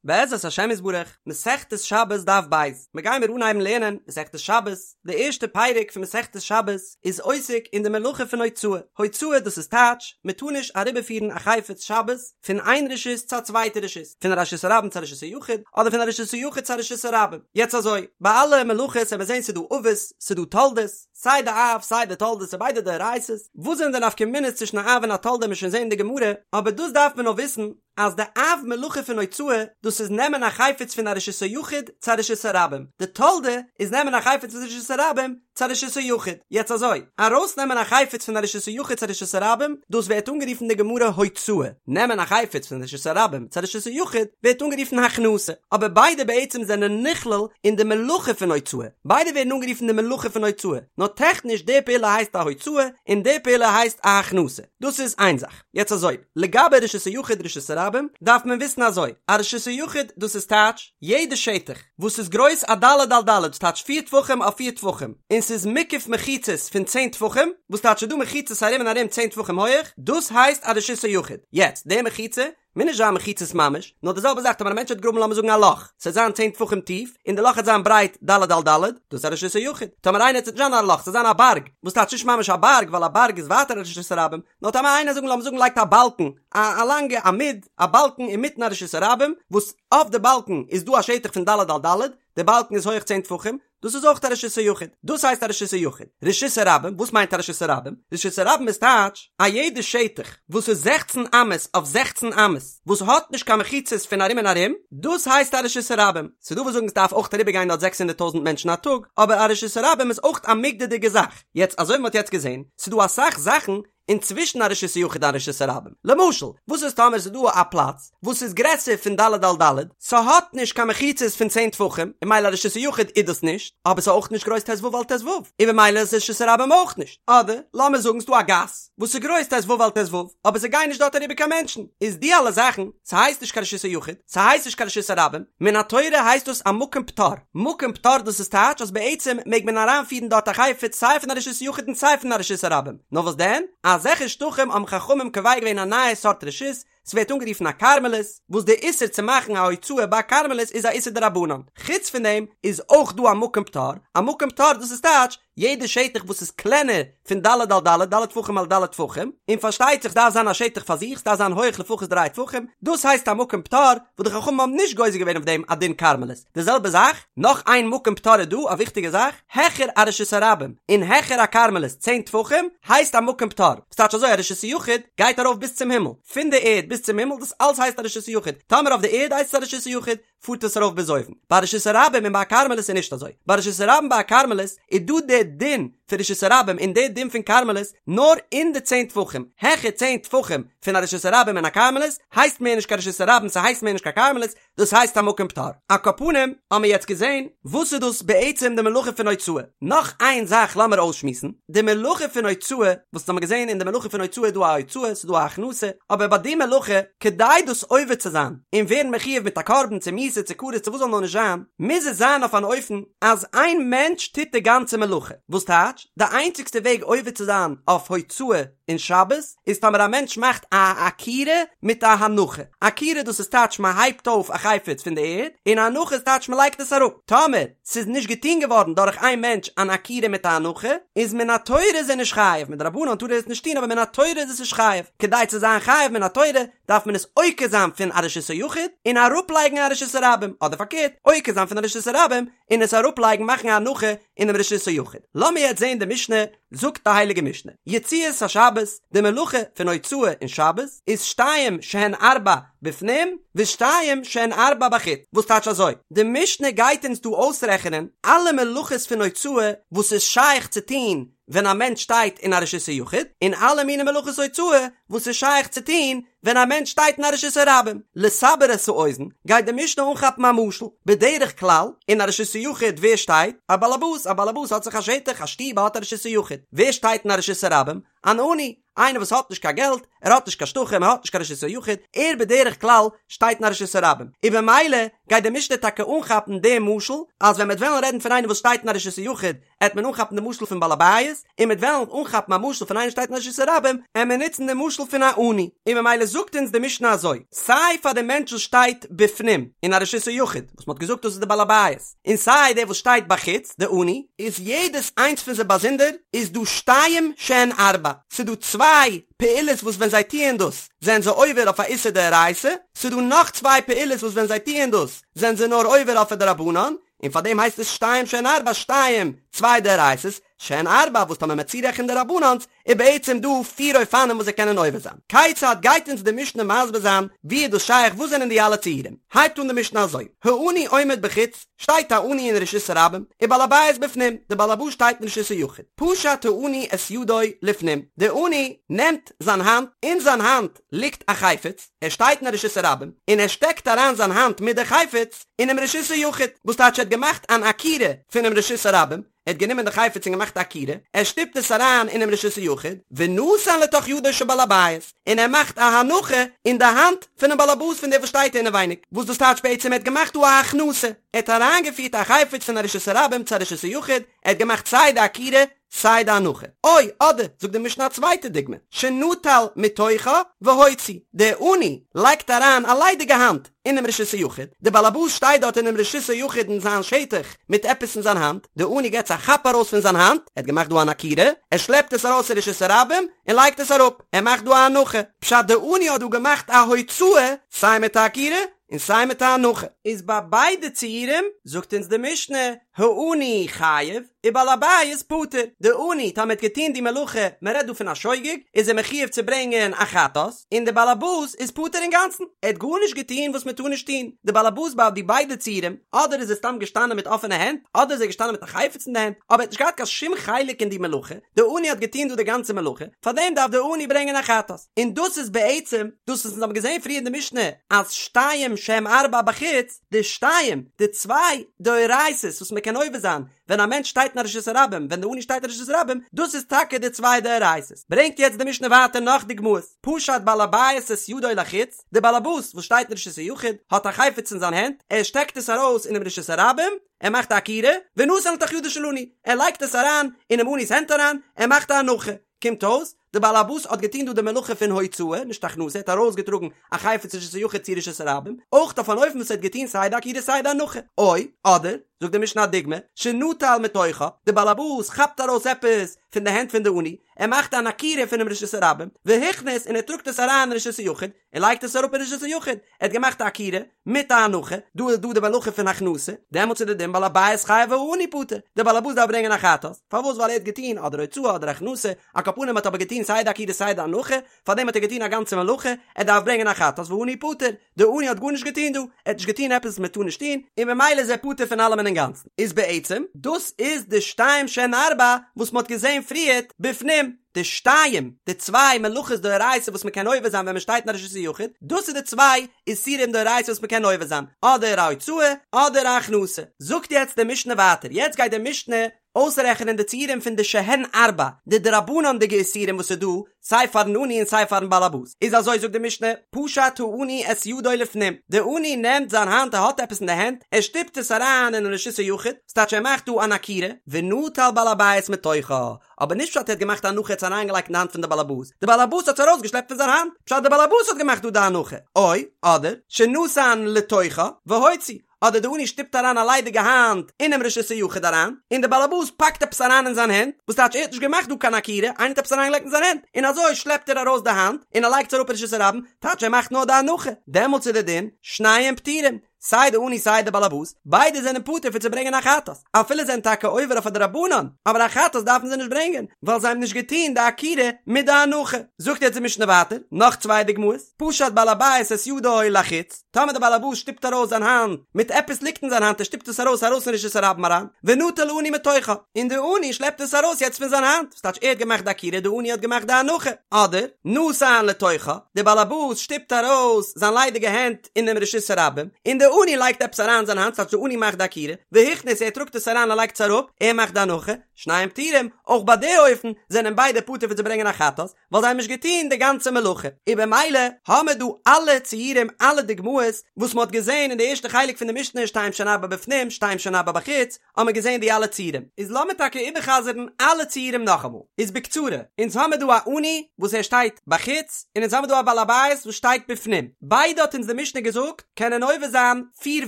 בעזרת השם יתברך, מסכת שבת דף ב', מיר גיימיר אנהייבן לערנען מסכת שבת, די ערשטע פרק פון מסכת שבת איז עוסק אין די מלאכה פון הוצאה, הוצאה דאס איז טייטש, מען טאר נישט אריבערפירן א חפץ שבת פון איין רשות צו א צווייטע רשות, פון א רשות הרבים צו א רשות היחיד, אדער פון א רשות היחיד צו א רשות הרבים. יעצט אזוי, ביי אלע מלאכות וועט מען זען ס'איז דא אבות, ס'איז דא תולדות, סיי די אב סיי די תולדות ס'איז ביידע דאורייתא'ס, וואס זענען די נפקא מינות צווישן א אב און א תולדה וועט מען שוין זען אין די גמרא, אבער דאס דארף מען נאר וויסן, אז די אב מלאכה פון הוצאה, דאס איז נעמען א חפץ פון א רשות היחיד צו א רשות הרבים, די תולדה איז נעמען א חפץ פון רשות הרבים צו א רשות היחיד. יעצט אזוי, ארויסנעמען א חפץ פון א רשות היחיד צו א רשות הרבים, דאס ווערט אנגערופן אין די גמרא הוצאה, נעמען א חפץ פון רשות הרבים צו א רשות היחיד ווערט אנגערופן הכנסה, אבער ביידע בעצם זענען נכלל אין די מלאכה פון הוצאה, ביידע ווערן אנגערופן די מלאכה פון הוצאה, נאר טעכניש די פעולה הייסט א הוצאה און די פעולה הייסט א הכנסה, דאס איז איין זאך. יעצט אזוי, לגבי רשות היחיד רשות הרבים, דארף מען וויסן אזוי, א רשות היחיד דאס איז טייטש, יעדע שטח וואס איז גרויס א ד' על ד' ס'טייטש פיר טפחים אויף פיר טפחים, און ס'איז מוקף מחיצות פון צען טפחים, וואס טייטש ס'איז דא מחיצות ארום און ארום צען טפחים הויעך, דאס הייסט א רשות היחיד. יעצט, די מחיצה, מוז נישט זיין מחיצות ממש, נאר די זעלבע זאך טאמער א מענטש האט געגראבן לאמיר זאגן א לאך, ס'וועט זיין צען טפחים טיף, און די לאך וועט זיין ברייט ד' על ד', דאס איז א רשות היחיד. טאמער איינער ס'וועט נישט זיין א לאך, ס'וועט זיין א בארג, וואס טייטש נישט ממש א בארג, ווייל א בארג איז ווייטער א רשות הרבים, נאר טאמער איינער זאגן לאמיר זאגן לייגט א באלקן, א א לאנגע עמוד, א באלקן אינמיטן א רשות הרבים, וואס אויף די באלקן איז דא א שטח פון ד' על ד', די באלקן איז הויך צען טפחים, דאס איז אויך א רשות היחיד, דאס הייסט א רשות היחיד. רשות הרבים, וואס מיינט א רשות הרבים? רשות הרבים איז טייטש, א יעדע שטח וואס איז זעכצן אמות אויף זעכצן אמות, וואס האט נישט קיין מחיצות פון ארום און ארום, דאס הייסט א רשות הרבים. ס'דא וואס זאגן ס'דארף אויך אריבערגיין דארט זעקס הונדערט טויזנט מענטשן א טאג, אבער א רשות הרבים איז אויך א מוגדר'דיגע זאך. יעצט אזוי ווי מ'האט יעצט געזען, ס'דא אסאך זאכן אינצווישן א רשות היחיד און א רשות הרבים. למשל, וואס איז טאמער ס'איז דא א פלאץ וואס איז גרעסער פון ד' על ד', ס'האט נישט קיין מחיצות פון צען טפחים, און ממילא א רשות היחיד איז דאס נישט, אבער ס'איז אויך נישט גרויס ט"ו על ט"ו, און ממילא איז רשות הרבים אויך נישט. אדער, לאמיר זאגן ס'דא א גאס וואס איז גרויס ט"ו על ט"ו, אבער ס'גייען נישט דארט אריבער קיין מענטשן, איז די אלע זאכן, ס'הייסט נישט קיין רשות היחיד, ס'הייסט נישט קיין רשות הרבים, מן התורה הייסט דאס א מקום פטור, מקום פטור דאס איז טייטש אז בעצם מעג מען אריינפירן דארט א חפץ סיי פון א רשות היחיד און סיי פון א רשות הרבים, נאר וואס דען, אזעלכע שטחים האבן חכמים קובע געווען א נייע סארט רשות, ס'ווערט אנגערופן א כרמלית, וואס די איסור צו מאכן א הוצאה ביי א כרמלית איז א איסור דרבנן, חוץ פון דעם איז אויך דא א מקום פטור, א מקום פטור דאס איז טייטש יעדע שטח וואס איז קלענער פון ד' על ד', ד' טפחים על ד' טפחים, און פארשטייט זיך ס'דארף זיין א שטח פאר זיך, ס'דארף זיין הויעך לפחות דריי טפחים, דאס הייסט א מקום פטור, וואס די חכמים האבן נישט גוזר געווען אויף דעם א דין כרמלית. די זעלבע זאך, נאך איין מקום פטור איז דא, א וויכטיגע זאך, העכער א רשות הרבים, און העכער א כרמלית צען טפחים, הייסט א מקום פטור. ס'טייטש אזוי א רשות היחיד גייט ארויף ביז צום הימל, פון די ערד ביז צום הימל, דאס אלץ הייסט א רשות היחיד, טאמער אויף די ערד הייסט עס א רשות היחיד, פארט עס ארויף ביז אויבן. ביי רשות הרבים און ביי א כרמלית איז נישט אזוי. ביי רשות הרבים ביי א כרמלית איז דא די דין פון רשות הרבים און די דין פון כרמלית נאר אין די צען טפחים. העכער צען טפחים פון א רשות הרבים און א כרמלית הייסט מער נישט קיין רשות הרבים ס'הייסט מער נישט קיין כרמלית, דאס הייסט א מקום פטור. על כל פנים האמיר יעצט געזען וואס איז דאס בעצם די מלאכה פון הוצאה. נאך איין זאך לאמיר אויסשמועסן, די מלאכה פון הוצאה, וואס האמיר געזען אין די מלאכה פון הוצאה איז דא א הוצאה, ס'איז דא א הכנסה, אבער ביי די מלאכה, כדי דאס עובר צו זיין, און ווערן מחויב מיט א קרבן צו מיתה צו כרת צו וואס זאל נאר נישט זיין, מוז עס זיין אויף אן אופן אז איין מענטש טוט די גאנצע מלאכה, וואס טייטש, די איינציגסטע וועג עובר צו זיין אויף הוצאה אין שבת, איז טאמער א מענטש מאכט א עקירה מיט א הנחה, עקירה דאס איז טייטש מען הייבט אויף א חפץ פון די ערד, און הנחה איז טייטש מען לייגט עס אראפ, טאמער ס'איז נישט געטון געווארן דורך איין מענטש אן עקירה מיט א הנחה, איז מן התורה איז ער נישט חייב, מדרבנן טאר ער עס נישט טון אבער מן התורה איז עס נישט חייב, כדי צו זיין חייב מן התורה דארף מען עס עוקר זיין פון א רשות היחיד און אראפלייגן א רשות הרבים, אדער פארקערט, עוקר זיין פון א רשות הרבים און עס אראפלייגן מאכן א הנחה אינעם רשות היחיד. לאמיר יעצט זען די משנה, זאגט די הייליגע משנה, יציאת השבת, די מלאכה פון הוצאה אין שבת איז שתיים שהן ארבע בפנים ושתיים שהן ארבע בחוץ, וואס טייטש אזוי? די משנה גייט אונז דא אויסרעכענען אלע מלאכות פון הוצאה וואס איז שייך צו טון ווען א מענטש שטייט אין א רשות היחיד, און אלע מיני מלאכות הוצאה וואס איז שייך צו טון ווען א מענטש שטייט אין א רשות הרבים. לסבר את האוזן, גייט די משנה אנכאפן א משל, בדרך כלל, אין א רשות היחיד ווער שטייט? א באלעבאס, א באלעבאס האט זיך א שטח, א שטוב, ער האט א רשות היחיד. ווער שטייט אין א רשות הרבים? אן עני, איינער וואס האט נישט קיין געלט, ער האט נישט קיין שטחים, ער האט נישט קיין רשות היחיד, ער בדרך כלל שטייט אין א רשות הרבים. און במילא גייט די משנה טאקע אנכאפן דעם משל, אז ווען מ'וועט וועלן רעדן פון איינער וואס שטייט אין א רשות היחיד, עט מען אנכאפן די משל פון בעל הבית, און מ'עט וועלן אנכאפן א משל פון איינער שטייט אין רשות הרבים, עט מען נוצן די משל פון א עני, און ממילא זאגט. זאגט אונז די משנה אזוי, סיי פאר די מענטש וואס שטייט בפנים אין א רשות היחיד, וואס מ'האט געזאגט דאס איז די בעל הבית, און סיי דער וואס שטייט בחוץ, די עני, איז יעדעס איינס פון זיי באזונדער איז דא שתיים שהן ארבע, ס'איז דא צוויי פעולות וואס ווען זיי טוען דאס זענען זיי עובר אויף א איסור דאורייתא, ס'איז דא נאך צוויי פעולות וואס ווען זיי טוען דאס זענען זיי נאר עובר אויף א דרבנן, און פאר דעם הייסט עס שתיים שהן ארבע שתיים, צוויי דאורייתא'ס, שהן ארבע וואס טאמער מ'עט צורעכענען די דרבנן'ס איז בעצם דא פיר אופנים וואס זיי קענען עובר זיין. כיצד גייט אונז די משנה מסביר זיין ווי איז דאס שייך וואס זענען די אלע ציורים? הייבט אן די משנה אזוי, העני עומד בחוץ, שטייט א עני אין רשות הרבים, ובעל הבית בפנים, די בעל הבית שטייט אין רשות היחיד, פשט העני את ידו לפנים, די עני נעמט זיין האנט, אין זיין האנט ליגט א חפץ, ער שטייט אין א רשות הרבים, און ער שטעקט אריין זיין האנט מיט די חפץ אינעם רשות היחיד, וואס טייטש ער האט געמאכט אן עקירה פונעם רשות הרבים, ער האט גענומען די חפץ און געמאכט א עקירה, ער שטופט עס אריין אינעם רשות היחיד, ונתן לתוך ידו של בעל הבית, און ער מאכט א הנחה אין די האנט פונעם בעל הבית פון דער וואס שטייט אינעווייניג, וואס דאס טייטש בעצם ער האט געמאכט דא א הכנסה, ער האט אריינגעפירט א חפץ פון א רשות הרבים צו א רשות היחיד, ער האט געמאכט סיי די עקירה סיי די הנחה. או, אדער, זאגט די משנה א צווייטע דוגמא, שנטל מתוכה והוציא, דער עני לייגט אריין א ליידיגע האנט אינעם רשות היחיד, דער באלעבאס שטייט דארט אינעם רשות היחיד אין זיין שטח מיט עפעס אין זיין האנט, דער עני געט עס א כאפ ארויס פון זיין האנט, ער האט געמאכט דא אן עקירה, ער שלעפט עס ארויס אין רשות הרבים און לייגט עס אראפ, ער מאכט דא א הנחה, פשט דער עני האט דא געמאכט א הוצאה סיי מיט א עקירה און סיי מיט א הנחה. איז ביי ביידע ציורים זאגט אונז די משנה, העני חייב, ובעל הבית פטור, די עני טאמער האט געטון די מלאכה, מען רעדט דא פון א שוגג, איז ער מחיוב צו ברענגען א חטאת, און די בעל הבית איז פטור אינגאנצן, ער האט גארנישט געטון וואס מען טאר נישט טון, די בעל הבית ביי די ביידע ציורים, אדער איז ער סתם געשטאנען מיט אפענע הענט, אדער איז ער געשטאנען מיט א חפץ אין די הענט, אבער ער האט נישט געהאט קיין שום חלק אין די מלאכה, די עני האט געטון דא די גאנצע מלאכה, פארדעם דארף די עני ברענגען א חטאת, און דאס איז בעצם דאס וואס אונז האבן געזען פריער אין די משנה, אז שתיים שהם ארבע בחוץ, די שתיים, די צוויי דאורייתא'ס וואס מען קען עובר זיין ווען א מענטש שטייט אין א רשות הרבים, ווען די עני שטייט אין רשות הרבים, דאס איז טאקע די צוויי דאורייתא'ס. ברענגט יעצט די משנה ווייטער נאך דוגמאות, פשט בעל הבית את ידו לחוץ, די בעל הבית וואס שטייט אין רשות היחיד האט א חפץ אין זיין הענט, ער שטעקט עס ארויס אינעם רשות הרבים, ער מאכט א עקירה, ונתן לתוך ידו של עני, ער לייגט עס אריין אינעם עני'ס הענט אריין, ער מאכט א הנחה. קומט אויס, די בעל הבית האט געטון דא די מלאכה פון הוצאה, נישט הכנסה, ער האט ארויסגעטראגן א חפץ רשות היחיד צו רשות הרבים, אויך אויף אן אופן וואס ער האט געטון סיי די עקירה סיי די הנחה. או, אדער, זאגט די משנה א דוגמא, שנטל מתוכה, די בעל הבית כאפט ארויס עפעס פון די הענט פון די עני, ער מאכט אן עקירה פונעם רשות הרבים, והכניס און ער טראגט עס אריין אין רשות היחיד, און לייגט עס אראפ אין רשות היחיד, ער האט געמאכט א עקירה מיט א הנחה, דא איז דא די מלאכה פון הכנסה, דעמאלטס איז די דין בעל הבית חייב והעני פטור, דער בעל הבית דארף ברענגען א חטאת, פארוואס ווייל ער האט געטון אדער הוצאה אדער הכנסה, על כל פנים האט אבער געטון סיי די עקירה סיי די הנחה, פארדעם האט ער געטון א גאנצע מלאכה, ער דארף ברענגען א חטאת והעני פטור, דער עני האט גארנישט געטון דא, ער האט נישט געטון עפעס וואס מען טאר נישט טון, און ממילא איז ער פטור פון אלעמען אינגאנצן, איז בעצם דאס איז די שתיים שהן ארבע וואס מען האט געזען פריערט בפנים. די שתיים, די צוויי מלאכות דאורייתא וואס מ'קען עובר זיין ווען מ'שטייט אין א רשות היחיד, דאס איז די צוויי איסורים דאורייתא וואס מ'קען עובר זיין, אדער א הוצאה אדער א הכנסה. זאגט יעצט די משנה ווייטער, יעצט גייט די משנה אויסרעכענען די ציורים פון די שהן ארבע, די דרבנן'דיגע איסורים וואס איז דא סיי פארן עני און סיי פארן בעל הבית. איז אזוי זאגט די משנה, פשט העני את ידו לפנים, די עני נעמט זיין האנט ער האט עפעס אין די הענט, ער שטופט עס אריין אינעם רשות היחיד, ס'טייטש ער מאכט דא אן עקירה, ונטל בעל הבית מתוכה, אבער נישט פשט ער האט געמאכט א הנחה עס אריינגעלייגט אין די האנט פון די באלעבאס, די באלעבאס האט עס ארויסגעשלעפט פון זיין האנט, פשט די באלעבאס האט געמאכט דא די הנחה, או, אדער, שנתן לתוכה, והוציא, אדער די עני שטופט אריין א ליידיגע האנט אינעם רשות היחיד אריין, און די באלעבאס פאקט עפעס אריין אין זיין הענט, וואס טייטש ער האט נישט געמאכט דא קיין עקירה, איינער האט עפעס אריינגעלייגט אין זיין הענט, און אזוי שלעפט ער ארויס די האנט, און ער לייגט עס אראפ אין רשות הרבים, טייטש ער מאכט נאר די הנחה, דעמאלטס איז די דין, שניהם פטורים. סיי די עני סיי די באלעבאס, ביידע זענען פטור פון צו ברענגען א חטאת, אפילו זענען טאקע עובר אויף א דרבנן, אבער א חטאת דארפן זיי נישט ברענגען, ווייל זיי האבן נישט געטון די עקירה מיט די הנחה. זאגט יעצט די משנה ווייטער, נאך צוויי דוגמאות, פשט בעל הבית את ידו לחוץ, טאמער די באלעבאס שטופט ארויס זיין האנט מיט עפעס ליגט אין זיין האנט ער שטופט עס ארויס ארויס אין רשות הרבים אריין, ונטל העני מתוכה, און די עני שלעפט עס ארויס יעצט פון זיין האנט, וואס טייטש ער האט געמאכט די עקירה די עני האט געמאכט די הנחה, אדער, נתן לתוכה, די באלעבאס שטופט ארויס זיין ליידיגע הענט, אינעם רשות הרבים, און די. עני לייגט עפעס אריין אין זיין האנט, ס'טייטש די עני מאכט די עקירה, והכניס ער טראגט עס אריין און לייגט עס אראפ, ער מאכט די הנחה, שניהם פטורים, אויך ביי די אופן זענען ביידע פטור פון צו ברענגען א חטאת, ווייל זיי האבן נישט געטון די גאנצע מלאכה, און במילא האמער דא אלע ציורים אלע דוגמאות וואס מ'האט געזען אין די ערשטע חלק פון די משנה שתיים שהן ארבע בפנים שתיים שהן ארבע בחוץ, האמער געזען די אלע ציורים, איז לאמיר טאקע איבערחזר'ן אלע ציורים נאכאמאל, איז בקצרה, אונז האמער דא א עני וואס ער שטייט בחוץ, און אונז האמער דא א בעל הבית וואס שטייט בפנים, ביידע האט אונז די משנה געזאגט קענען עובר זיין פיר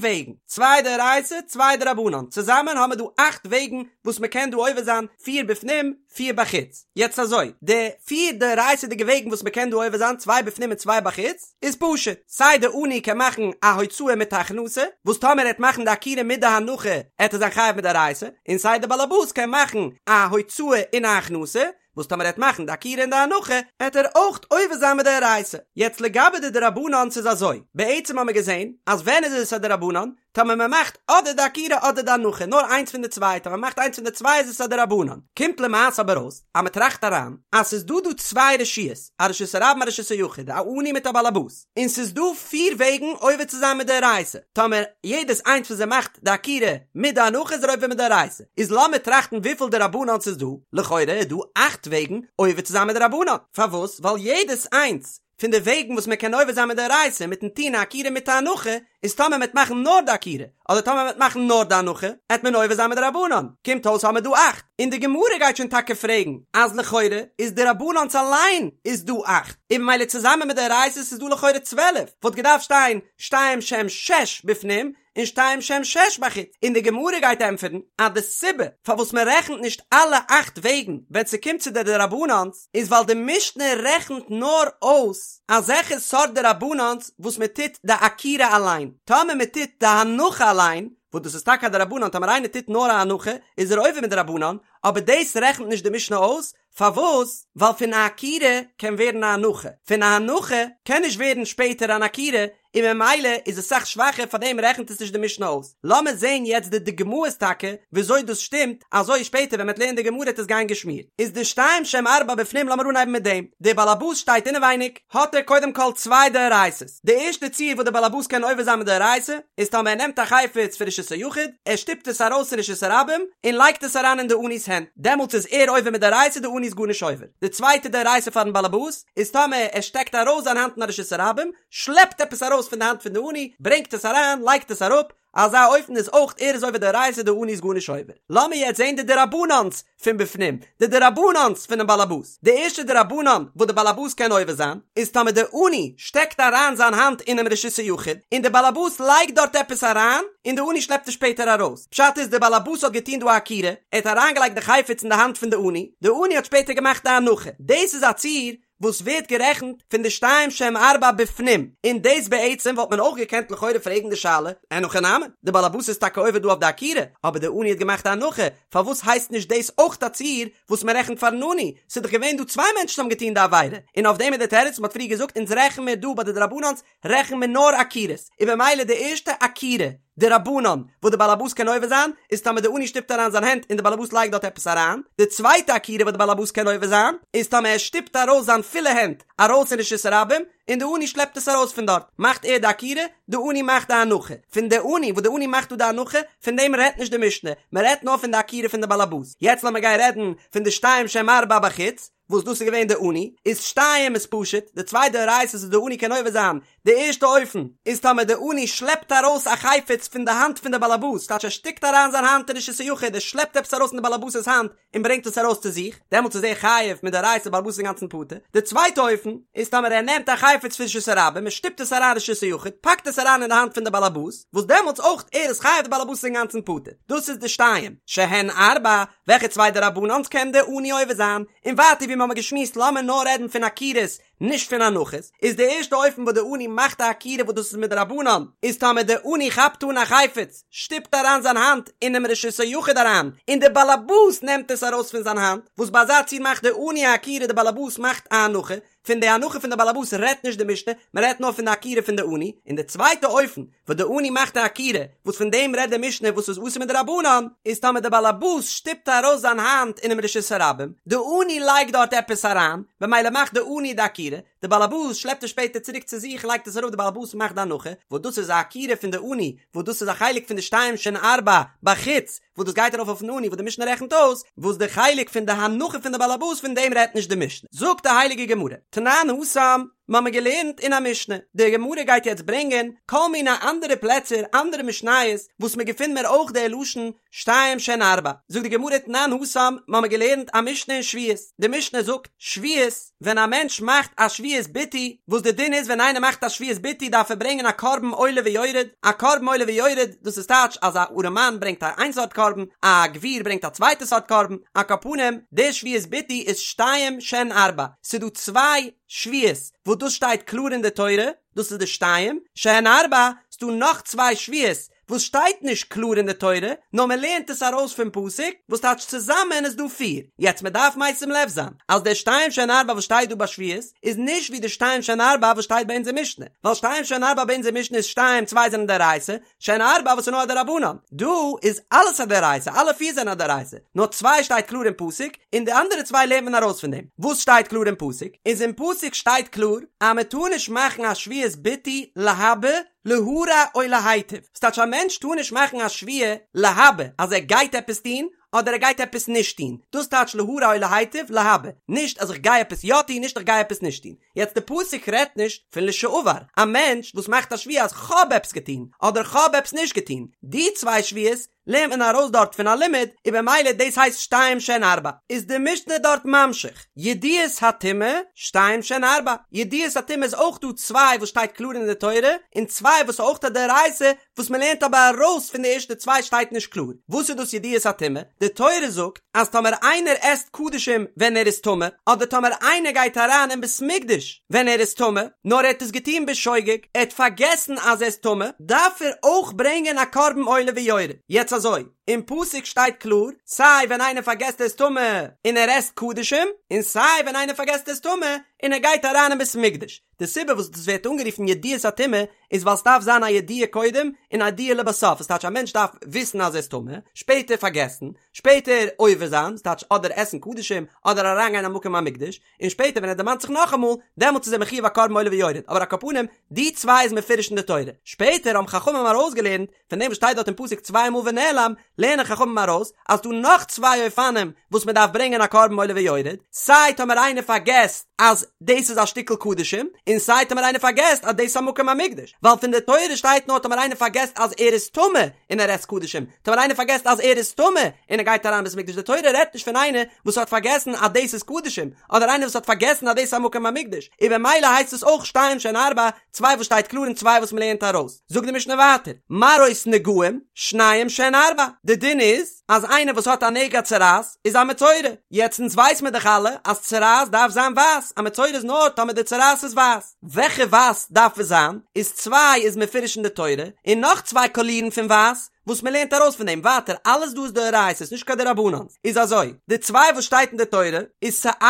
וועגן, צוויי דאורייתא צוויי דרבנן, צוזאמען האמער דא אכט וועגן וואס מ'קען דא עובר זיין, פיר בפנים, פיר בחוץ. יעצט אזוי, די פיר דאורייתא'דיגע וועגן וואס מ'קען דא עובר זיין, צוויי בפנים און צוויי בחוץ, איז פשוט, סיי די עני קען מאכן א הוצאה מיט א הכנסה, וואס טאמער ער העט מאכן די עקירה מיט די הנחה העט ער זיין חייב מדאורייתא, און סיי די באלעבאס קען מאכן א הוצאה און א הכנסה, וואס טאמער ער העט מאכן די עקירה און די הנחה, העט ער אויך עובר זיין מדאורייתא. יעצט לגבי די דרבנן'ס איז אזוי, בעצם האמיר געזען אז ווען איז עס א דרבנן? טאמער מען מאכט אדער די עקירה אדער די הנחה, נאר איינס פון די צוויי, טאמער מען מאכט איינס פון די צוויי איז עס א דרבנן. קומט למעשה אבער אויס אז מען טראכט אריין אז ס'איז דא דא צוויי רשויות, א רשות הרבים א רשות היחיד, א עני מיט א באלעבאס, און ס'איז דא פיר וועגן עובר צו זיין מדאורייתא, טאמער יעדעס איינס פון זיי מאכט די עקירה מיט די הנחה איז ער עובר מדאורייתא, איז לאמיר טראכטן וויפיל דרבנן'ס ס'איז דא, לכאורה איז דא אכט וועגן עובר צו זיין מדרבנן, פארוואס? ווייל יעדעס איינס פון די וועגן וואס מען קען עובר זיין מדאורייתא מיטן טון א עקירה מיט א הנחה, איז טאמער מ'עט מאכן נאר די עקירה, אדער טאמער מ'עט מאכן נאר די הנחה, עט מען עובר זיין מדרבנן, קומט אויס האמער דא אכט, און די גמרא גייט שוין טאקע פרעגן אז לכאורה איז דרבנן'ס אליין איז דא אכט, און ממילא צוזאמען מיט דאורייתא'ס איז דא לכאורה 12, וואלט געדארפט שטיין שתיים שהם שש בפנים, און שתיים שהם שש בחוץ, און די גמרא גייט ענטפערן אז די סיבה פארוואס מען רעכנט נישט אלע אכט וועגן ווען ס'קומט צו די דרבנן'ס איז ווייל די משנה רעכנט נאר אויס אזעלכע סארט דרבנן'ס וואס מען טוט די עקירה אליין, טאמער מען טוט די הנחה אליין, וואס דאס איז טאקע א דרבנן, טאמער איינער טוט נאר א הנחה איז ער עובר מדרבנן, אבער דאס רעכנט נישט די משנה אויס, פארוואס? ווייל פון א עקירה קען ווערן א הנחה, פון א הנחה קען נישט ווערן שפעטער אן עקירה, און ממילא איז עס סאך שוואכער פארדעם רעכנט עס נישט די משנה אויס. לאמיר זעהן יעצט די דוגמאות טאקע וויאזוי דאס שטימט, אזוי שפעטער ווען מ'עט לערנען די גמרא וועט עס גיין געשמירט. איז די שתיים שהם ארבע בפנים לאמיר אנהייבן מיט דעם, דער באלעבאס שטייט אינעווייניג, האט ער קודם כל צוויי דאורייתא'ס, די ערשטע ציור וואס דער באלעבאס קען עובר זיין מדאורייתא איז טאמער ער נעמט א חפץ פון רשות היחיד, ער שטופט עס ארויס אין רשות הרבים און לייגט עס אריין אין די עני'ס הענט, דעמאלטס איז ער עובר מדאורייתא די עני איז גארנישט עובר. די צווייטע דאורייתא פארן באלעבאס איז טאמער ער שטעקט ארויס זיין האנט אין א רשות הרבים, שלעפט עפעס ארויס פון די האנט פון די עני, ברענגט עס אריין, לייגט עס אראפ, אזא אופן איז אויך ער איז עובר דאורייתא די עני איז גארנישט עובר. לאמיר יעצט זעהן די דרבנן'ס פון בפנים, די דרבנן'ס פונעם באלעבאס. די ערשטע דרבנן וואס די באלעבאס קען עובר זיין, איז טאמער די עני שטעקט אריין זיין האנט אינעם רשות היחיד, און די באלעבאס לייגט דארט עפעס אריין, און די עני שלעפט עס שפעטער ארויס. פשט איז די באלעבאס האט געטון דא א עקירה, ער האט אריינגעלייגט די חפץ אין די האנט פון די עני, די עני האט שפעטער געמאכט די הנחה. דאס איז א ציור וואס ווערט גערעכנט פון די שתיים שהם ארבע בפנים, און דאס בעצם וואלט מען אויך געקענט לכאורה פרעגן די שאלה, אין הכי נמי, די באלעבאס איז טאקע עובר דא אויף די עקירה, אבער די עני האט געמאכט א הנחה, פארוואס הייסט נישט דאס אויך א ציור וואס מען רעכנט פארן עני, ס'איז דאך געווען דא צוויי מענטשן האבן געטון די עבירה, און אויף דעם איז די תירוץ, מען האט פריער געזאגט אונז רעכן מיר דא ביי די דרבנן'ס רעכן מיר נאר עקירות, און במילא די ערשטע עקירה דרבנן וואס די באלעבאס קען עובר זיין איז טאמער די עני שטופט אריין זיין הענט און די באלעבאס לייגט דארט עפעס אריין, די צווייטע עקירה וואס די באלעבאס קען עובר זיין איז טאמער ער שטופט ארויס זיין פולע הענט ארויס אין רשות הרבים און די עני שלעפט עס ארויס פון דארט מאכט ער די עקירה, די עני מאכט די הנחה, פון די עני וואס די עני מאכט דא די הנחה פון דעם רעדט נישט די משנה, מען רעדט נאר פון די עקירה פון די באלעבאס, יעצט לאמיר גיין רעדן פון די שתיים שהם ארבע בחוץ, וואס דאס איז געווען די עני, איז שתיים איז פשוט, די צוויי דאורייתא'ס וואס די עני קען עובר זיין, די ערשטע אופן איז טאמער די עני שלעפט ארויס א חפץ פון די האנט פון די באלעבאס, טייטש ער שטיקט אריין זיין האנט אין רשות היחיד, ער שלעפט עפעס ארויס פון די באלעבאס'ס האנט און ברענגט עס ארויס צו זיך, דעמאלטס איז ער חייב מדאורייתא די באלעבאס איז אינגאנצן פטור, די צווייטע אופן איז טאמער ער נעמט א חפץ פון רשות הרבים און שטופט עס אריין רשות היחיד, פאקט עס אריין אין די האנט פון די באלעבאס, וואס דעמאלטס אויך ער איז חייב די באלעבאס איז אינגאנצן פטור, דאס איז די שתיים שהן ארבע, וועלכע צוויי דרבנן'ס קען די עני עובר זיין? און ווייטער ווי מ'האמער געשמועסט לאמיר נאר רעדן פון עקירות נישט פון הנחות, איז די ערשטע אופן וואס די עני מאכט א עקירה וואס דאס איז מדרבנן, איז טאמער די עני כאפט אן א חפץ, שטופט אריין זיין האנט אינעם רשות היחיד אריין, און די באלעבאס נעמט עס ארויס פון זיין האנט, וואס ביי אזא ציור מאכט די עני א עקירה די באלעבאס מאכט א הנחה, פון די הנחה פון די באלעבאס רעדט נישט די משנה, מען רעדט נאר פון די עקירה פון די עני, און די צווייטע אופן וואס די עני מאכט א עקירה, וואס פון דעם רעדט די משנה וואס איז אסור מדרבנן, איז טאמער די באלעבאס שטופט ארויס זיין האנט אינעם רשות הרבים, די עני לייגט דארט עפעס אריין, במילא מאכט די עני די עקירה. עקירה, די באלעבאס שלעפט עס שפעטער צוריק צו זיך לייגט עס אראפ די באלעבאס מאכט די הנחה, וואס דאס איז א עקירה פון די עני, וואס דאס איז א חלק פון די שתיים שהן ארבע בחוץ, וואס דאס גייט ארויף אויפן עני וואס די משנה רעכנט אויס, וואס די חלק פון די הנחה פון די באלעבאס פון דעם רעדט נישט די משנה. זאגט די הייליגע גמרא, תנן התם, מ'האמיר געלערנט אין א משנה, די גמרא גייט יעצט ברענגען כל מיני אנדערע פלעצער אנדערע משניות וואס מ'געפינט מיר אויך די לשון שתיים שהן ארבע, זאגט די גמרא תנן התם, מ'האמיר געלערנט א משנה אין שבועות, די משנה זאגט, שבועות, ווען א מענטש מאכט א שבועת ביטוי, וואס די דין איז ווען איינער מאכט א שבועת ביטוי דארף ער ברענגען א קרבן עולה ויורד, א קרבן עולה ויורד, דאס איז טייטש אז א ארעמאן ברענגט א איין סארט קרבן, א גביר ברענגט א צווייטע סארט קרבן, על כל פנים, די שבועת ביטוי איז שתיים שהן ארבע, ס'איז דא צוויי שבועות וואס דאס שטייט קלאר אין די תורה, דאס איז די שתיים שהן ארבע, ס'דא נאך צוויי שבועות וואס שטייט נישט קלאר אין די תורה, נאר מען לערנט עס ארויס פון פסוק, וואס טייטש צוזאמען איז דא פיר. יעצט מען דארף משים לב זיין, אז דער שתיים שהן ארבע וואס שטייט דא ביי שבועות, איז נישט ווי די שתיים שהן ארבע וואס שטייט ביי אונזער משנה, ווייל שתיים שהן ארבע ביי אונזער משנה איז שתיים צוויי זענען דאורייתא, שהן ארבע וואס איז נאר א דרבנן, דא איז אלעס א דאורייתא, אלע פיר זענען א דאורייתא, נאר צוויי שטייט קלאר אין פסוק, און די אנדערע צוויי לערנט מען ארויס פון דעם. וואס שטייט קלאר אין פסוק? איז אין פסוק שטייט קלאר אז מען טאר נישט מאכן א שבועת ביטוי להבא להרע או להיטיב, ס'טייטש א מענטש טאר נישט מאכן א שבועה להבא אז ער גייט עפעס טון אדער ער גייט עפעס נישט טון, דאס טייטש להרע או להיטיב להבא, נישט אז איך גיי עפעס יא טון נישט איך גיי עפעס נישט טון. יעצט די פסוק רעדט נישט פון לשעבר, א מענטש וואס מאכט א שבועה אז כ'האב עפעס געטון אדער כ'האב עפעס נישט געטון, די צוויי שבועות לערנט מען ארויס דארט פון א לימוד, און במילא דאס הייסט שתיים שהן ארבע. איז די משנה דארט ממשיך, ידיעות הטומאה, שתיים שהן ארבע, ידיעות הטומאה איז אויך דא צוויי וואס שטייט קלאר אין די תורה, און צוויי וואס איז אויך א דאורייתא, וואס מען לערנט אבער ארויס פון די ערשטע צוויי שטייט נישט קלאר. וואס איז דאס ידיעות הטומאה? די תורה זאגט אז טאמער איינער עסט קדשים ווען ער איז טמא, אדער טאמער איינער גייט אריין אין בית מקדש ווען ער איז טמא, נאר ער האט עס געטון בשוגג, ער האט פארגעסן אז ער איז טמא, דארף ער אויך ברענגען א קרבן עולה ויורד. יעצט אזוי, אין פסוק שטייט קלאר, סיי ווען איינער פארגעסט ער איז טמא און ער עסט קדשים, און סיי ווען איינער פארגעסט ער איז טמא און ער גייט אריין אין בית מקדש. די סיבה וואס דאס ווערט אנגערופן ידיעת הטומאה איז ווייל ס'דארף זיין א ידיעה קודם און א ידיעה לבסוף, עס טייטש א מענטש דארף וויסן אז ער איז טמא, שפעטער פארגעסן, שפעטער עובר זיין, ס'טייטש אדער עסן קדשים אדער אריינגיין אין מקום המקדש, און שפעטער ווען ער דערמאנט זיך נאכאמאל, דעמאלטס איז ער מחיוב א קרבן עולה ויורד, אבער על כל פנים, די צוויי איז מפורש אין די תורה. שפעטער האבן חכמים ארויסגעלערנט פון דעם וואס שטייט דארט אין פסוק צוויי מאל ונעלם, לערנען חכמים ארויס אז ס'דא נאך צוויי אופנים וואס מען דארף ברענגען א קרבן עולה ויורד, סיי טאמער איינער פארגעסט אז דאס איז א שטיקל קדשים, און סיי טאמער איינער פארגעסט אז דאס איז א מקום המקדש, ווייל פון די תורה שטייט נאר טאמער איינער פארגעסט אז ער איז טמא און ער עסט קדשים, טאמער איינער פארגעסט אז ער איז טמא און ער גייט אריין אין בית המקדש, די תורה רעדט נישט פון איינער וואס האט פארגעסן אז דאס איז קדשים, אדער איינער וואס האט פארגעסן אז דאס איז א מקום המקדש, און במילא הייסט עס אויך שתיים שהן ארבע, צוויי וואס שטייט קלאר און צוויי וואס מ'לערנט ארויס. זאגט די משנה ווייטער, מראות נגעים, שניים שהן ארבע, די דין איז אז איינער וואס האט א נגע צרעת איז א מצורע, יעצט אונז ווייס מיר דאך אלע אז צרעת דארף זיין ווייס, א מצורע איז נאר טאמער די צרעת איז ווייס, וועלכע ווייס דארף עס זיין, איז צוויי איז מפורש אין די תורה, און נאך צוויי קאלירן פון ווייס, וואס מען לערנט ארויס פון דעם ווייטער אלעס דא איז דאורייתא'ס נישט קיין דרבנן'ס איז אזוי די צוויי וואס שטייט אין די תורה איז שאת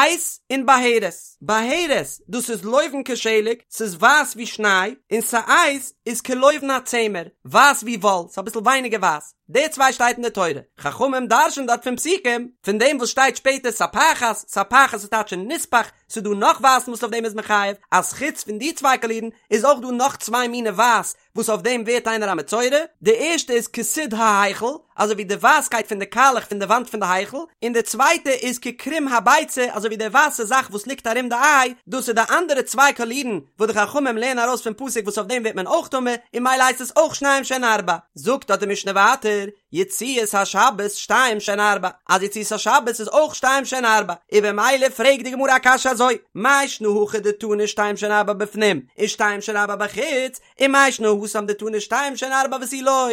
און בהרת בהרת דאס איז לובן כשלג ס'איז ווייס ווי שניי און שאת איז כלובן הצמר ווייס ווי וואל ס'איז אביסל ווייניגער ווייס די צוויי שטייט אין די תורה חכמים דרש'ן דארט פון פסוקים פון דעם וואס שטייט שפעטער ספחת ספחת איז טייטש נספח ס'איז דא נאך ווייסן וואס אויף דעם איז מען חייב אז חוץ פון די צוויי קאלירן איז אויך דא נאך צוויי מיני ווייס וואס אויף דעם ווערט איינער א מצורע, די ערשטע איז כסיד ההיכל, אזוי ווי די ווייסקייט פון די קאלעך פון די וואנט פון די היכל, און די צווייטע איז כקרום הביצה, אזוי ווי די ווייסע זאך וואס ליגט ארום די איי, דאס איז די אנדערע צוויי קאלירן וואס די חכמים לערנען ארויס פון פסוק וואס אויף דעם ווערט מען אויך טמא, און ממילא הייסט עס אויך שניים שהן ארבע. זאגט דארט די משנה ווייטער, יציאות השבת שתיים שהן ארבע, אז יציאות השבת איז אויך שתיים שהן ארבע, און במילא פרעגט די גמרא א קשיא אזוי, מאי שנא הכא דתנא שתיים שהן ארבע בפנים, און שתיים שהן ארבע בחוץ, ומאי שנא התם דתנא שתיים שהן ארבע ותו לא,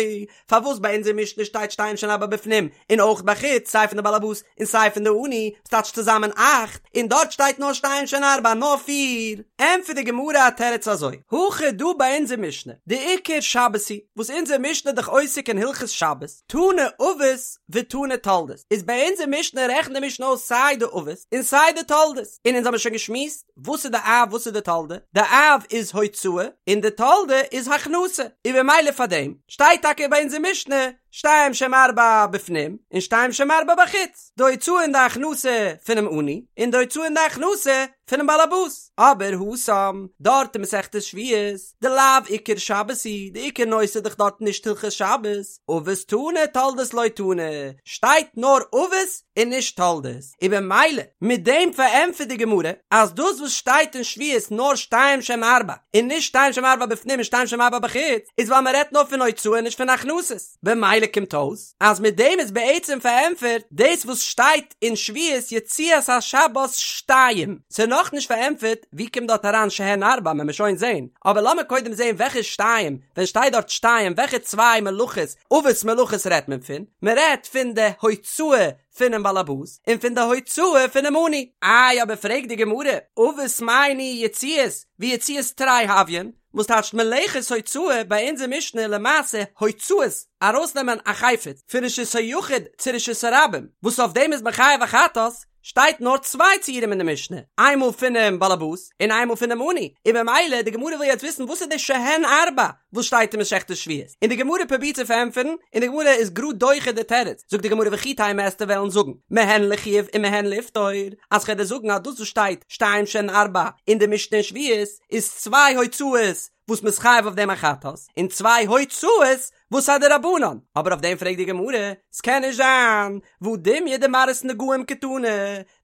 פארוואס ביי אונזער משנה שטייט שתיים שהן ארבע בפנים און אויך בחוץ סיי פון די באלעבאס און סיי פון די עני, ס'טייטש צוזאמען אכט, און דארט שטייט נאר שתיים שהן ארבע נאר פיר? ענטפערט די גמרא א תירוץ אזוי, הכא דא ביי אונזער משנה, דעיקר שבת היא, וואס אונזער משנה איז דאך עוסק אין הלכות שבת, תנא אבות ותנא תולדות, איז ביי אונזער משנה רעכנט די משנה אויס סיי די אבות און סיי די תולדות, און אונז האבן שוין געשמועסט וואס איז די אב וואס איז די תולדה, די אב איז הוצאה און די תולדה איז הכנסה, און במילא פאר דעם שטייט טאקע ביי אונזער משנה שתיים שהן ארבע בפנים און שתיים שהן ארבע בחוץ, די הוצאה און די הכנסה פונעם עני און די הוצאה און די הכנסה. פונעם באלעבאס, אבער התם, דארט אין מסכת שבועות, דלאו עיקר שבת היא, די עיקר נושא איז דאך דארט נישט הלכות שבת, אבות תנא תולדות לא תנא, שטייט נאר אבות און נישט תולדות, און במילא מיט דעם פארענטפערט די גמרא אז דאס וואס שטייט אין שבועות נאר שתיים שהן ארבע און נישט שתיים שהן ארבע בפנים און שתיים שהן ארבע בחוץ איז ווייל מען רעדט נאר פון הוצאה און נישט פון הכנסות, במילא קומט אויס אז מיט דעם איז בעצם פארענטפערט דאס וואס שטייט אין שבועות יציאת השבת שתיים, ס'איז נאכנישט פארענטפערט ווי קומט דארט אריין שהן ארבע וועלן מיר שוין זעהן, אבער לאמיר קודם זעהן וועלכע שתיים, ווען שטייט דארט שתיים וועלכע צוויי מלאכות, אבות מלאכות רעדט מען פון? מען רעדט פון די הוצאה פונעם באלעבאס און פון די הוצאה פונעם עני. איי אבער פרעגט די גמרא, אבות מאי ניהו יציאות ויציאות תרי הויין, וואס טייטשט מלאכת הוצאה ביי אונזער משנה למעשה הוצאות ארויסנעמען א חפץ פון רשות היחיד צו רשות הרבים וואס אויף דעם איז מען חייב א חטאת, שטייט נאר צוויי ציורים אין די משנה, איינמאל פונעם באלעבאס און איינמאל פונעם עני, און במילא די גמרא וויל יעצט וויסן וואס איז די שהן ארבע וואס שטייט אין מסכת שבועות, און די גמרא פרובירט צו פארענטפערן, און די גמרא איז גראד דוחה די תירוץ, זאגט די גמרא וכי תימא וועסטו וועלן זאגן מהן לחיוב ומהן לפטור, אז כ'וועל דיר זאגן אז דאס וואס שטייט שתיים שהן ארבע אין די משנה אין שבועות איז צוויי הוצאות וואס מ'איז חייב אויף דעם א חטאת, און צוויי הוצאות וואס א דרבנן, אבער אויף דעם פרעגט די גמרא, ס'קען נישט זיין, והא דומיא דמראות נגעים קתני,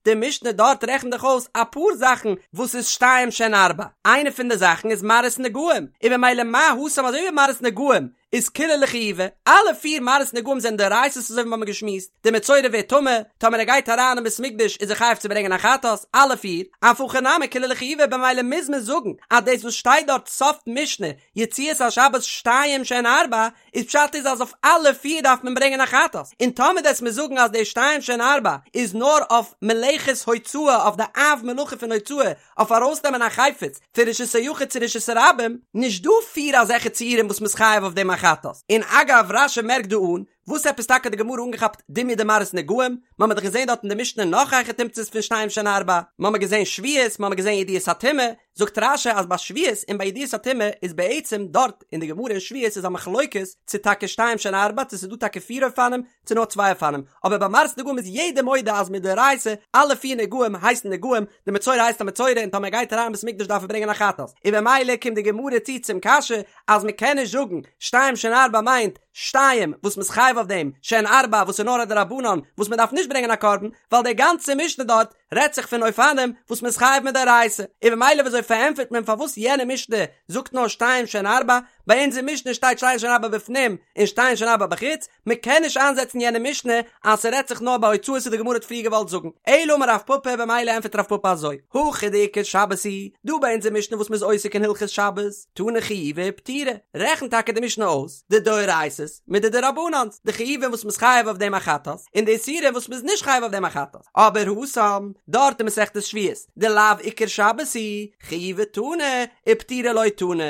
די משנה דארט רעכנט דאך אויס אפאר זאכן וואס איז שתיים שהן ארבע, איינע פון די זאכן איז מראות נגעים, און במילא מה התם אזוי ווי מראות נגעים איז כולהו לחיובא, אלע פיר מראות נגעים זענען דאורייתא'ס אזוי ווי מ'האמיר געשמועסט, די מצורע ווערט טמא, טאמער ער גייט אריין אין בית מקדש איז ער חייב צו ברענגען א חטאת, אלע פיר, אף הכא נמי כולהו לחיובא במילא מוז מען זאגן אז דאס וואס שטייט דארט סוף משנה יציאת השבת שתיים שהן ארבע, איז פשט איז אז אויף אלע פיר דארף מען ברענגען א חטאת, און טאמער וועסט מיר זאגן אז די שתיים שהן ארבע איז נאר אויף מלאכת הוצאה אויף די אב מלאכה פון הוצאה אויף ארויסנעמען א חפץ פון רשות היחיד צו רשות הרבים, נישט דא פיר אזעלכע ציורים וואס מ'איז חייב אויף דעם א חטאת, און אגב רש"י מערקט דא אן וואס עפעס טאקע האט די גמרא אנגעכאפט דומיא דמראות נגעים, מ'האמיר דאך געזען דארט אין די משנה נאך היכי תמצא'ס פון שתיים שהן ארבע, מ'האמיר געזען שבועות, מ'האמיר געזען ידיעות הטומאה, זאגט רש"י אז ביי שבועות און ביי ידיעות הטומאה איז בעצם דארט אין די גמרא אין שבועות איז א מחלוקת צו טאקע שתיים שהן ארבע צו ס'איז דא טאקע פיר אופנים צו נאר צוויי אופנים, אבער ביי מראות נגעים איז יעדער מודה אז מדאורייתא אלע פיר נגעים הייסן נגעים, די מצורע הייסט א מצורע און טאמער ער גייט אריין אין בית מקדש דארף ער ברענגען א חטאת, און במילא קומט די גמרא צו צום קשיא אז מ'קען נישט זאגן שתיים שהן ארבע מיינט שתיים וואס מ'איז חייב אויף דעם, שהן ארבע וואס איז נאר א דרבנן וואס מ'דארף נישט ברענגען א קרבן, ווייל די גאנצע משנה דארט רעדט זיך פון אופנים וואס מ'איז חייב מדאורייתא, און במילא וויאזוי פארענטפערט מען פארוואס יענע משנה זאגט נאר שתיים שהן ארבע, ביי אונזער משנה שטייט שתיים שהן ארבע בפנים און שתיים שהן ארבע בחוץ, מ'קען נישט איינזעצן יענע משנה אז ס'רעדט זיך נאר ביי הוצאות וואס די גמרא האט פריער געוואלט זאגן, אלא אמר רב פפא במילא ענטפערט רב פפא אזוי, הכא דעיקר שבת היא, דא ביי אונזער משנה וואס מ'איז עוסק אין הלכות שבת, תני חיובי ופטירי, רעכנט טאקע די משנה אויס די דאורייתא'ס מיט די דרבנן'ס, די חיובים וואס מ'איז חייב אויף דעם א חטאת, און די איסורים וואס מ'איז נישט חייב אויף דעם א חטאת, אבער התם, דארט אין מסכת שבועות, דלאו עיקר שבת היא, חיובי תני, ופטירי לא תני,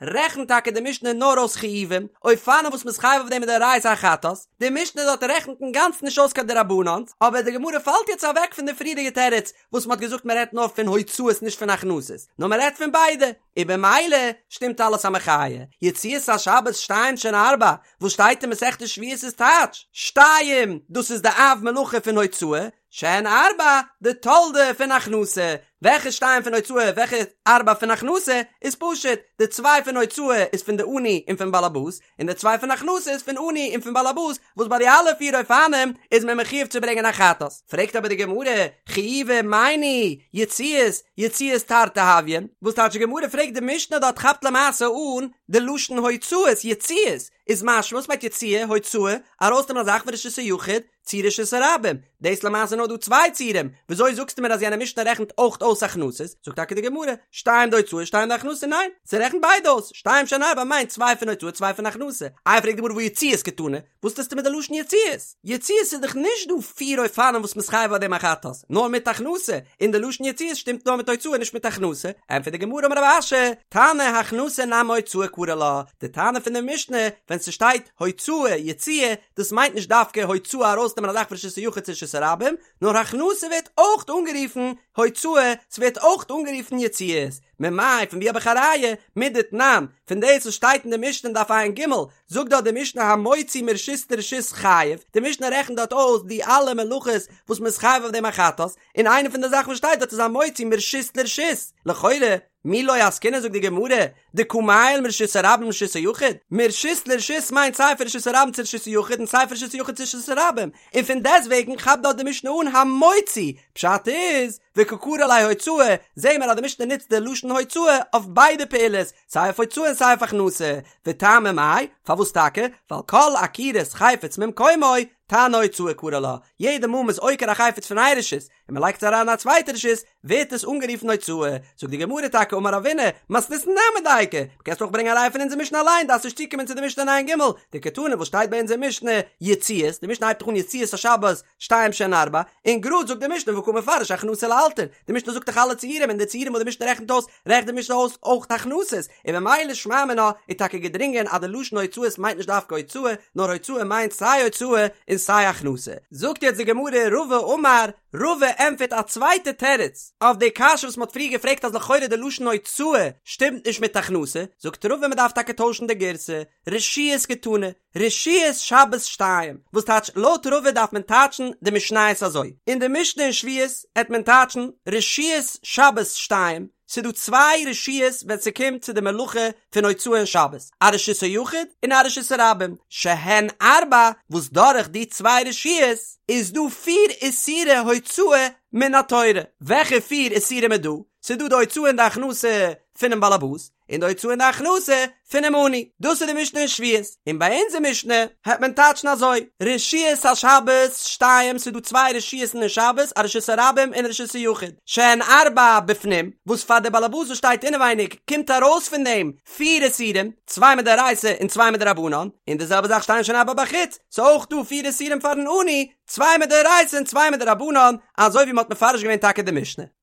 רעכנט טאקע די משנה נאר אויס חיובים, אופנים וואס מ'איז חייב אויף דעם מדאורייתא א חטאת, די משנה דארט רעכנט אינגאנצן נישט אויס קיין דרבנן'ס, אבער די גמרא פאלט יעצט אוועק פון די פריערדיגע תירוץ וואס מ'האט געזאגט מ'רעדט נאר פון הוצאות נישט פון הכנסות, נאר מ'רעדט פון ביידע, און במילא שטימט אלעס א מחיה. יציאת השבת שתיים שהן ארבע, וואס שטייט אין מסכת שבועות איז טייטש, שתיים, דאס איז די אב מלאכה פון הוצאה, שהן ארבע, די תולדה פון הכנסה. וועלכע שתיים פון הוצאה וועלכע ארבע פון הכנסה, איז פשוט, די צוויי פון הוצאה איז פון די עני און פון באלעבאס, און די צוויי פון הכנסה איז פון עני און פון באלעבאס, וואס ביי די אלע פיר אופנים איז מען מחויב צו ברענגען א חטאת. פרעגט אבער די גמרא, חיובי מאי ניהו, יציאות, יציאות תרתי הויין, וואס טייטש די גמרא פרעגט די משנה דארט כאפט למעשה אן די לשון הוצאות, יציאות, איז משמע וואס מיינט יציאה, הוצאה, ארויסנעמען א זאך פון רשות היחיד, צו רשות הרבים, דאס למעשה נאר דא צוויי ציורים, וויאזוי זאגסטו מיר אז יענע משנה רעכנט אויך אויס הכנסות, זאגט טאקע די גמרא, שתיים דהוצאה שתיים דהכנסה, ניין, ס'רעכנט ביידע אויס, שתיים שהן ארבע מיינט צוויי פון הוצאה צוויי פון הכנסה, איי פרעגט די גמרא והא יציאות קתני, וואס טוסטו מיט די לשון יציאות? יציאות איז דאך נישט דא פיר אופנים וואס מ'איז חייב אויף דעם א חטאת, נאר מיט הכנסה, און די לשון יציאות שטימט נאר מיט הוצאה נישט מיט הכנסה, ענטפערט די גמרא אמר רב אשי, תנא הכנסה נמי הוצאה קרי לה, די תנא פון די משנה ווען ס'שטייט הוצאה יציאה דאס מיינט נישט דווקא הוצאה ארויסנעמען א זאך פון רשות היחיד צו רשות הרבים, נאר הכנסה ווערט אויך אנגערופן הוצאה, ס'ווערט אויך אנגערופן יציאות. ממאי פון ווי האב איך א ראיה? מדתנן, פון דאס וואס שטייט אין די משנה אין דף ע"ג, זאגט דארט די משנה המוציא מרשות לרשות חייב, די משנה רעכנט דארט אויס די אלע מלאכות וואס מ'איז חייב אויף דעם א חטאת, און איינע פון די זאכן וואס שטייט דארט איז המוציא מרשות לרשות, לכאורה, מי לא עסקינן זאגט די גמרא, דקא מעייל מרשות הרבים לרשות היחיד, מרשות לרשות מיינט סיי פון רשות הרבים צו רשות היחיד און סיי פון רשות היחיד צו רשות הרבים, און פון דעסטוועגן כאפט דארט די משנה אן המוציא, פשט איז, וקא קרי לה הוצאה, זעהן מיר אז די משנה נוצט די לשון הוצאה אויף ביידע פעולות, סיי אויף הוצאה און סיי אויף הכנסה, וטעמא מאי, פארוואס טאקע? ווייל כל עקירת חפץ ממקומו, תנא הוצאה קרי לה, יעדע מאל מ'איז עוקר א חפץ פון איין רשות, און מ'לייגט עס אריין אין א צווייטע רשות, ווערט עס אנגערופן הוצאה. זאגט די גמרא טאקע אמר רבינא, מתניתין נמי דייקא, מ'קענסט אויך ברענגען א ראיה פון אונזער משנה אליין, דארפסט נישט צוקומען צו די משנה אין ע"ג, דקתני וואס שטייט ביי אונזער משנה, יציאות, די משנה הייבט דאך אן יציאות השבת, שתיים שהן ארבע, און גראד זאגט די משנה וקא מפרש הכנסה לאלתר, די משנה זאגט דאך אלע ציורים און די ציורים וואס די משנה רעכנט אויס, רעכנט די משנה אויס אויך הכנסות, און ממילא שמע מינה איז טאקע געדרינגען אז די לשון הוצאות מיינט נישט דווקא הוצאה, נאר הוצאה מיינט סיי הוצאה און סיי הכנסה. זאגט יעצט די גמרא רבא אמר, רבא ענטפערט א צווייטע תירוץ אויף די קשיא וואס מען האט פריער געפרעגט אז לכאורה די לשון הוצאה שטימט נישט מיט הכנסה, זאגט רבא מען דארף טאקע טוישן די גירסא, רשויות קתני, רשויות שבת שתיים, וואס טייטש לויט רבא דארף מען טייטשן די משניות אזוי, אין די משנה אין שבועות העט מען טייטשן רשויות שבת שתיים, ס'דא צוויי רשויות ווען ס'קומט צו די מלאכה פון הוצאה אין שבת, א רשות היחיד און א רשות הרבים, שהן ארבע, וואס דורך די צוויי רשויות איז דא פיר איסורי הוצאה מן התורה, וועלכע פיר איסורים איז דא? ס'דא די הוצאה און די הכנסה פונעם באלעבאס, און די הוצאה און די הכנסה פונעם עני, דאס איז די משנה אין שבועות, און ביי אונזער משנה העט מען טייטשן אזוי, רשויות השבת שתיים, ס'איז דא צוויי רשות'ן אין שבת, א רשות הרבים און רשות היחיד, שהן ארבע בפנים, וואס פאר די באלעבאס וואס שטייט אינעווייניג קומט ארויס פון דעם פיר איסורים, צוויי מדאורייתא און צוויי מדרבנן, און די זעלבע זאך שתיים שהן ארבע בחוץ, ס'איז אויך דא פיר איסורים פארן עני, צוויי מדאורייתא און צוויי מדרבנן, אזוי ווי מ'האט מפרש געווען טאקע די משנה.